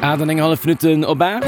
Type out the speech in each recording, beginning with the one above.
8 an eng hallef Minutten op 8.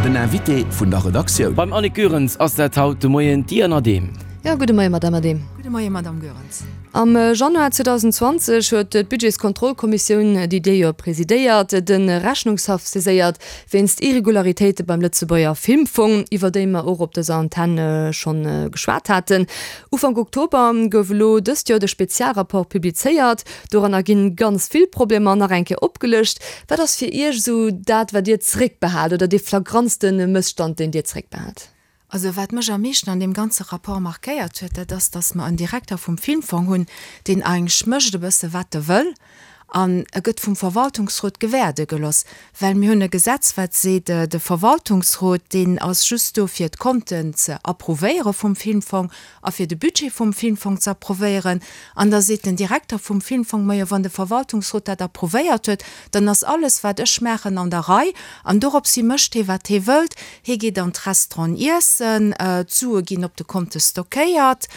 Den Invité vun der Redaktioun. Beim Annick Goerens ass dat haut de Moien d'Diane Adehm. Jo, gudde Moien, Madamm Adehm. Gudde Moien, Madamm Goerens. Am Januar 2020 huet d'Budgetskontrollkommissioun, déi Dir jo presidéiert, de Rechnungshaff saiséiert wéinst Irregularitéite beim Lëtzebuerger Filmfong, iwwer déi mer och op dëser Antenn schonn geschwat haten. Ufank Oktober gouf elo dëst Joer de Spezialrapport publizéiert. Doranner ginn ganz vill Problemer nach eng Kéier opgelëscht. Wat ass fir Iech esou dat, wat Dir zréckbehaalt oder dee flagrantste Mësstand, deen Dir zréckbehaalt? Also wat mech am meeschten an deem ganze Rapport markéiert huet, dat ass, datt mer en Direkter vum Filmfong hunn, deen eigentlech mécht e bësse wat e wëll an e gëtt vum Verwaltungsrot gewäerde geloss. Well mir hunn e Gesetz, wat seet, de Verwaltungsrot, deen ass just do fir d'Konten ze approuvéiere vum Filmfong a fir de Budget vum Filmfong ze approuvéieren. An da seet den Direkter vum Filmfong, Majo, wann de Verwaltungsrot dat approuvéiert huet, dann ass alles, wat ech maachen, an der Rei. An doropshi mécht hee, wat hee wëllt. Hee geet an d'Restauranten iessen, d'Sue ginn op de Konte stockéiert.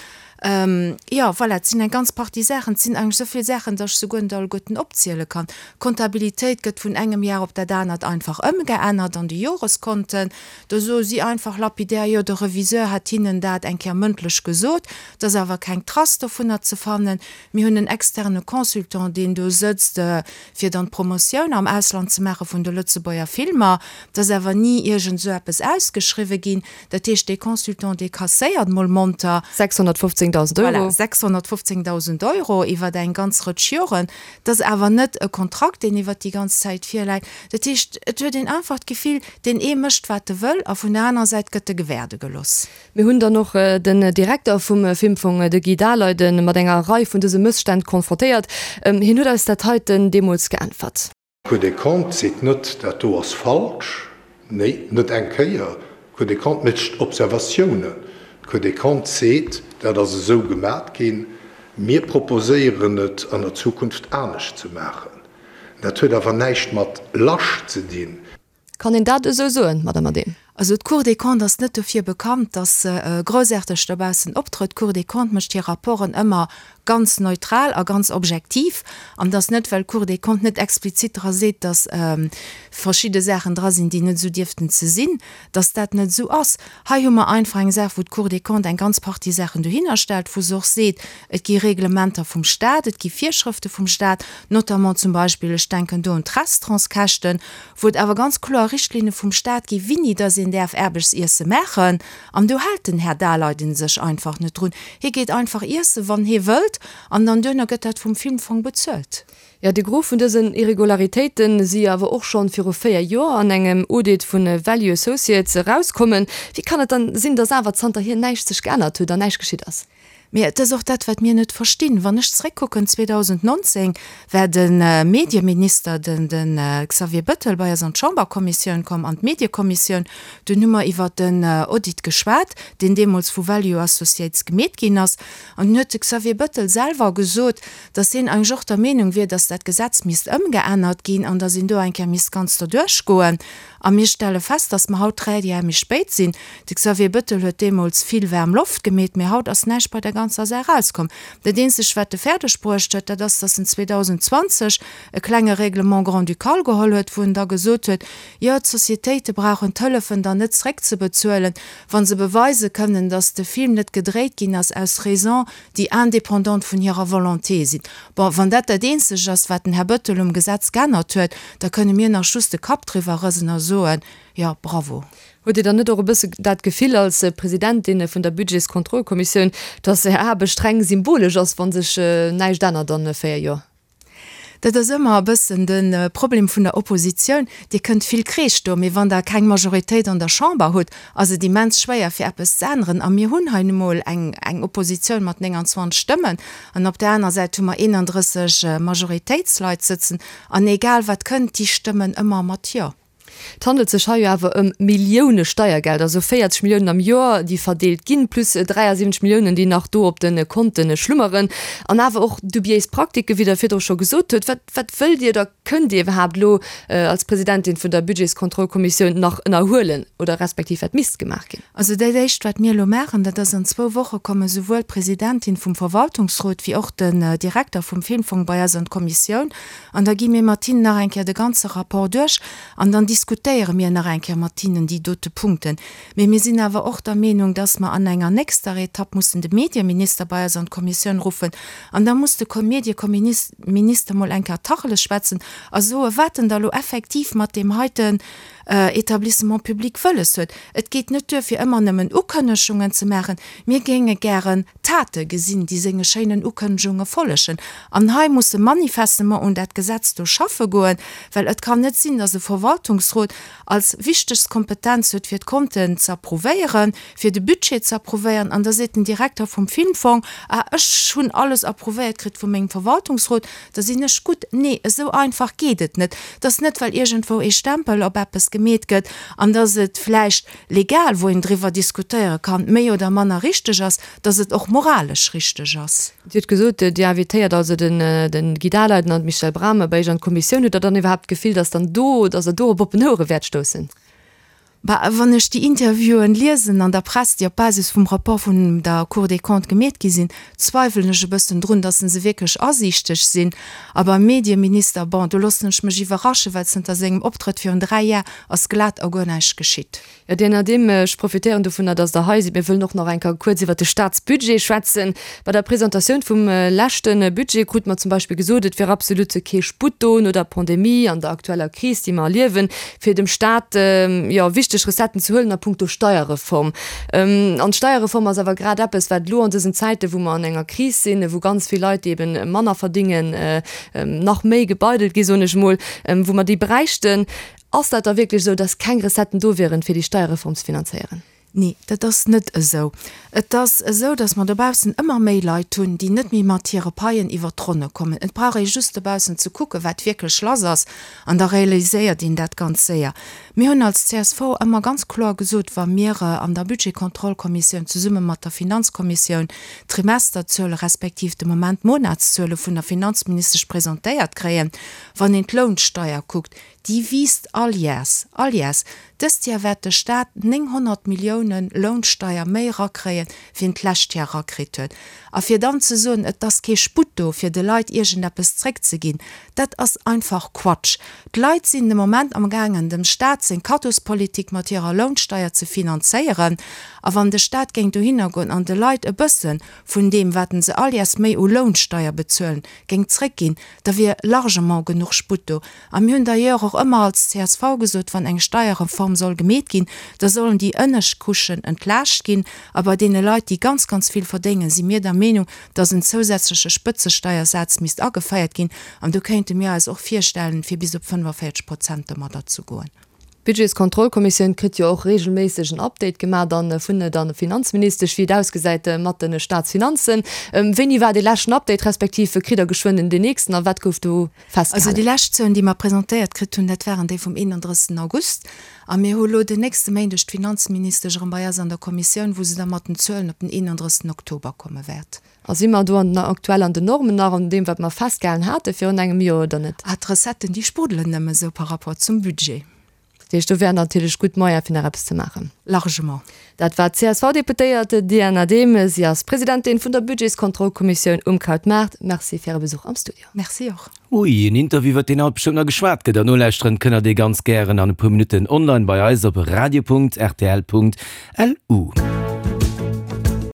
Jo, voilà, et sinn eng ganz Partie Saachen. Et sinn eigentlech esou vill Saachen, datt ech se guer net alleguerten opziele kann. D'Kontabilitéit gëtt vun engem Jar op dat anert einfach ëmgeännert an de Joreskonten. Do soe si einfach lapidär, jo, de Reviseur hätt hinnen dat eng Kéier mëndlech gesot. Et ass awer keng Trace dovunner ze fannen. Mir hunn en externe Consultant, deen do sëtzt, fir dann d'Promotioun am Ausland ze maache vun de Lëtzebuerger Filmer. Et ass awer ni iergend esou eppes ausgeschriwwe ginn. Dat heescht, dee Consultant, dee kasséiert mol monter. 615.000 Euro. Voilà, 615.000 Euro iwwer eng ganz Rëtsch Joren. Dat ass awer net e Kontrakt, deen iwwert déi ganz Zäit virläit. Dat heescht, et huet een einfach d'Gefill, deen ee mécht, wat e wëll, a vun der anerer Säit gëtt e gewäerde gelooss. Mir hunn dann och den Direkter vum Filmfong, de Guy Daleiden, mat enger Rei vun dëse Mësstänn konfrontéiert. Hien huet eis dat heiten deemools geäntwert. D'Cour des Comptes seet net, dat do ass falsch. Nee, net eng Kéier. D'Cour des Comptes mécht Observatiounen. D'Cour des Comptes seet, dat ass esou gemat ginn, mir proposéieren et an der Zukunft anescht ze maachen. Dat huet awer näischt mat lasch ze dinn. Kann een dat esou soen, Madame Adehm? Also d'Cour des Comptes ass net dofir bekannt, datt se groussaarteg dobaussen optrëtt. D'Cour des Comptes mécht hir Rapporten ëmmer ganz neutral a ganz objektiv. An et ass net, well d'Cour des Comptes net explizit dra seet, datt verschidde Saachen dra sinn, déi net esou dierften ze sinn, datt dat net esou ass. Hei hu mer einfach eng Saach, wou d'Cour des Comptes eng ganz Partie Saachen dohinner stellt, wou se och seet, et gi Reglementer vum Stat, et gi Virschrëfte vum Stat, notamment zum Beispill, ech denken do un d'Restaurantskäschten, wou et awer ganz kloer Richtlinne vum Stat gi wini dass een däerf Aarbechtsiesse maachen. An do hält den Här Daleiden sech einfach net drun. Hie geet einfach iessen, wann hie wëllt, an dann duerno gëtt dat vum Filmfong bezuelt. Jo, de Gros vun dësen Irregularitéite si jo awer och schonn viru 4 Joer an engem Audit vu Value Associates erauskommen. Wéi kann et dann sinn, dass awer zanterhier näischt sech geännert huet an näischt geschitt ass? Mee et ass och dat, wat mir net verstinn. Wann ech zréckkucken, 2019 war de Medieminister, den Xavier Bettel, bei eis an d'Chamberkommissioun komm, an d'Mediekommissioun. Dunn hu mer iwwert den Audit geschwat, deen deemools vu Value Associates gemeet ginn ass. An dunn huet de Xavier Bettel selwer gesot, datt hien eigentlech och der Meenung wier, datt dat Gesetz misst ëmgeännert ginn an datt een do eng Kéier misst ganz derduerch goen. A mir stelle fest, dass mer haut 3 Jar méi spéit sinn. De Xavier Bettel huet deemools vill waarm Loft gemeet, mee haut ass näischt bei der ganzer Saach erauskomm. Dat eenzegt, wat e fäerdeg bruecht huet, dat ass, dass en 2020 e klenge Règlement grand-ducal geholl huet, wou en da gesot huet, jo, d'Sociétéite brauchen d'Hëllefen dann net zréckzebezuelen, wa se beweise kënnen, dass de Film net gedréit ginn ass aus Raisons, déi indépendant vun hirer Volonté sinn. Bon, wann dat dat eenzegt ass, wat den Här Bettel um Gesetz geännert huet, da kënne mir nach just de Kapp driwwer rësen a soen, Jo, bravo. Hutt Dir dann net och e bësse dat Gefill als Presidentin vun der Budgetskontrollkommissioun, dass Är Aarbecht reng symbolesch ass, wa sech näischt ännert an 4 Joer? Dat ass ëmmer e bëssen de Problem vun der Oppositioun. Dir kënnt vill Kreesch doen, mee wann Der keng Majoritéit an der Chamber hutt, ass et immens schwéier fir eppes ze änneren. A mir hunn hei nu mol eng eng Oppositioun mat 29 Stëmmen an op där aner Säit hu mer 31 Majoritéitsleit sëtzen. An egal wat kënnt, déi stëmmen ëmmer mat Jo. Et handelt sech hei jo awer ëm Millioune Steiergeld, also 40 Milliounen am Joer, déi verdeelt ginn, plus 73 Milliounen, déi nach do op de Konte schlummeren. An awer och dubiéis Praktiken, wéi Der virdru scho gesot hutt. Wat, wat wëllt Dir oder kënnt Dir iwwerhaapt elo als Presidentin vun der Budgetskontrollkommissioun nach ënnerhuelen oder respektiv wat misst gemaach ginn? Also dat Éischt, wat mir elo maachen, dat ass, an zwou Woche komme souwuel d'Presidentin vum Verwaltungsrot wéi och den Direkter vum Filmfong bei eis an d'Kommissioun An da gi mir mat hinnen nach eng Kéier de ganze Rapport duerch an dann diskutéiere mir nach eng Kéier mat hinnen déi dote Punkten. Mee mir sinn awer och der Meenung, dass mer an enger nächster Etapp mussen de Medieminister bei eis an d'Kommissioun ruffen an da muss de Medieminister mol eng Kéier Tacheles schwätzen a soe wat en da lo effektiv mat deem heiten Etablissement public wëlles huet. Et geet net duer fir ëmmer nëmmen Ukënnegungen ze maachen. Mir géinge gären Tate gesinn, déi senge schéinen Ukënnegunge follegen. An hei muss e manifestement un dat Gesetz do schaffe goen, well et kann net sinn, dass e Verwaltungsrot als wichtegst Kompetenz huet, fir d'Konten ze approuvéieren, fir de Budget ze approuvéieren, an da seet den Direkter vum Filmfong, Ah, ech hunn alles approuvéiert kritt vu mengem Verwaltungsrot, da sinn ech gutt. Nee, esou einfach geet et net. Et ass net, well iergendwou ee Stempel op eppes gemeet gëtt an dass et vläicht legal, wou een driwwer diskutéiere kann, méi oder manner richteg ass, dass et och moralesch richteg ass. Dir hutt gesot, Dir invitéiert also den Guy Daleiden an d'Michèle Brammer bei Iech an d'Kommissioun. Hutt Der dann iwwerhaapt d'Gefill, dass dann do, dass Der do op oppen Ouere wäert stoussen? Bah, wann ech déi Interviewen liesen an der Press, déi op Basis vum Rapport vun der Cour des Comptes gemeet gi sinn, zweiwelen ech e bëssen drun, dass se wierklech asiichteg sinn. A beim Medieminister, bon, do loossen ech mech iwwerraschen, well zënter sengem Optrëtt virun 3 Jar ass glat a guer näischt geschitt. Jo, Dir Nadim, ech profitéieren dovunner, dass Der hei sidd. Mir wëllen och nach eng Kéier kuerz iwwert de Staatsbudget schwätzen. Bei der Presentatioun vum leschte Budget krute mer zum Beispill gesot, et wier absolut kee Sputt do no der Pandemie an der aktueller Kris, déi mer erliewen, fir dem Staat, jo, wichteg Recetten ze huelen a puncto Steierreform. An d'Steierreform ass awer grad eppes, wat elo an dësen Zäiten, wou mer an enger Kris sinn, wou ganz vill Leit, déi eben manner verdingen, nach méi gebeidelt gi, soen ech emol, wou mer déi bräichten. Ass dat da wierklech esou, dass keng Recetten do wieren, fir déi Steierreform ze finanzéieren? Nee, dat ass net esou. Et ass esou, dass mer dobaussen ëmmer méi Leit hunn, déi net méi mat hire Paien iwwert d'Ronne kommen. Et brauch ee just dobaussen ze kucken, wat wierklech lass ass, an da realiséiert een dat ganz séier. Mir hunn als csv ëmmer ganz kloer gesot, wa mir an der Budgetkontrollkommissioun zesumme mat der Finanzkommissioun d'Trimesterzuele respektiv de Moment d'Monatszuele vun der Finanzministesch presentéiert kréien, wann een d'Lounsteier kuckt, Déi wiisst all Jäers, all Jäers. Dëst Jar wäert de Staat 900 Milliounen Lounsteier méi erakréien, wéi en d'lescht Jar erakritt huet. A fir dann ze soen, et ass kee Sputt do, fir de Leit iergendeppes zréckzeginn, dat ass einfach Quatsch. D'Leit sinn de Moment amgaangen, dem Staat seng Kaddospolitik mat hirer Lounsteier ze finanzéieren. A wann de Staat géing dohinner goen an de Leit e bësse vun deem, wat se all Jäers méi u Lounsteier bezuelen, géing zréckginn, da wier largement genuch Sputt do. A mir hunn d'ailleurs och ëmmer als csv gesot, wann eng Steierreform soll gemeet ginn, da sollen déi ënnescht Couchen entlaascht ginn. A bei deene Leit, déi ganz, ganz vill verdéngen, si mir der Meenung, dass en zousätzleche Spëtzesteiersaz misst ageféiert ginn. An do kéinte mir eis och virstellen, fir bis op 45 Prozent domadder ze goen. D'Budgetskontrollkommissioun kritt jo och reegelméisseg en Update gemaach dann vun der Finanzministesch, wéi et ausgesäit mat de Staatsfinanzen. Wéini war dee leschten Update, respektiv kritt Der geschwënn den nächsten a wat gouf do festgehalen? Also déi lescht Zuelen, déi mer presentéiert kritt hunn, dat waren déi vum 31. August. A mir hu lo den nächste Méindeg d'Finanzministesch erëm bei eis an der Kommissioun, wou se da mat den Zuelen op den 31. Oktober komme wäert. A si mer do an den aktuell an den Normen nach, an deem wat mer festgehalen hate virun engem Joer oder net? Ah, d'Recetten, déi sprudelen nëmme sou par rapport zum Budget. Dat heescht, do wären natierlech gutt Moyene fir nach eppes ze maachen. Largement. Dat war d'CSV-Deputéiert Diane Adehm. Si ass Presidentin vun der Budgetskontrollkommissioun um Krautmaart. Merci fir Äre Besuch am Studio. Merci och. Ui, en Interview iwwert deen haut bestëmmt nach geschwat gëtt. An nolauschteren kënnt der dee ganz gären an e puer Minutten online bei eis op radio.rtl.lu.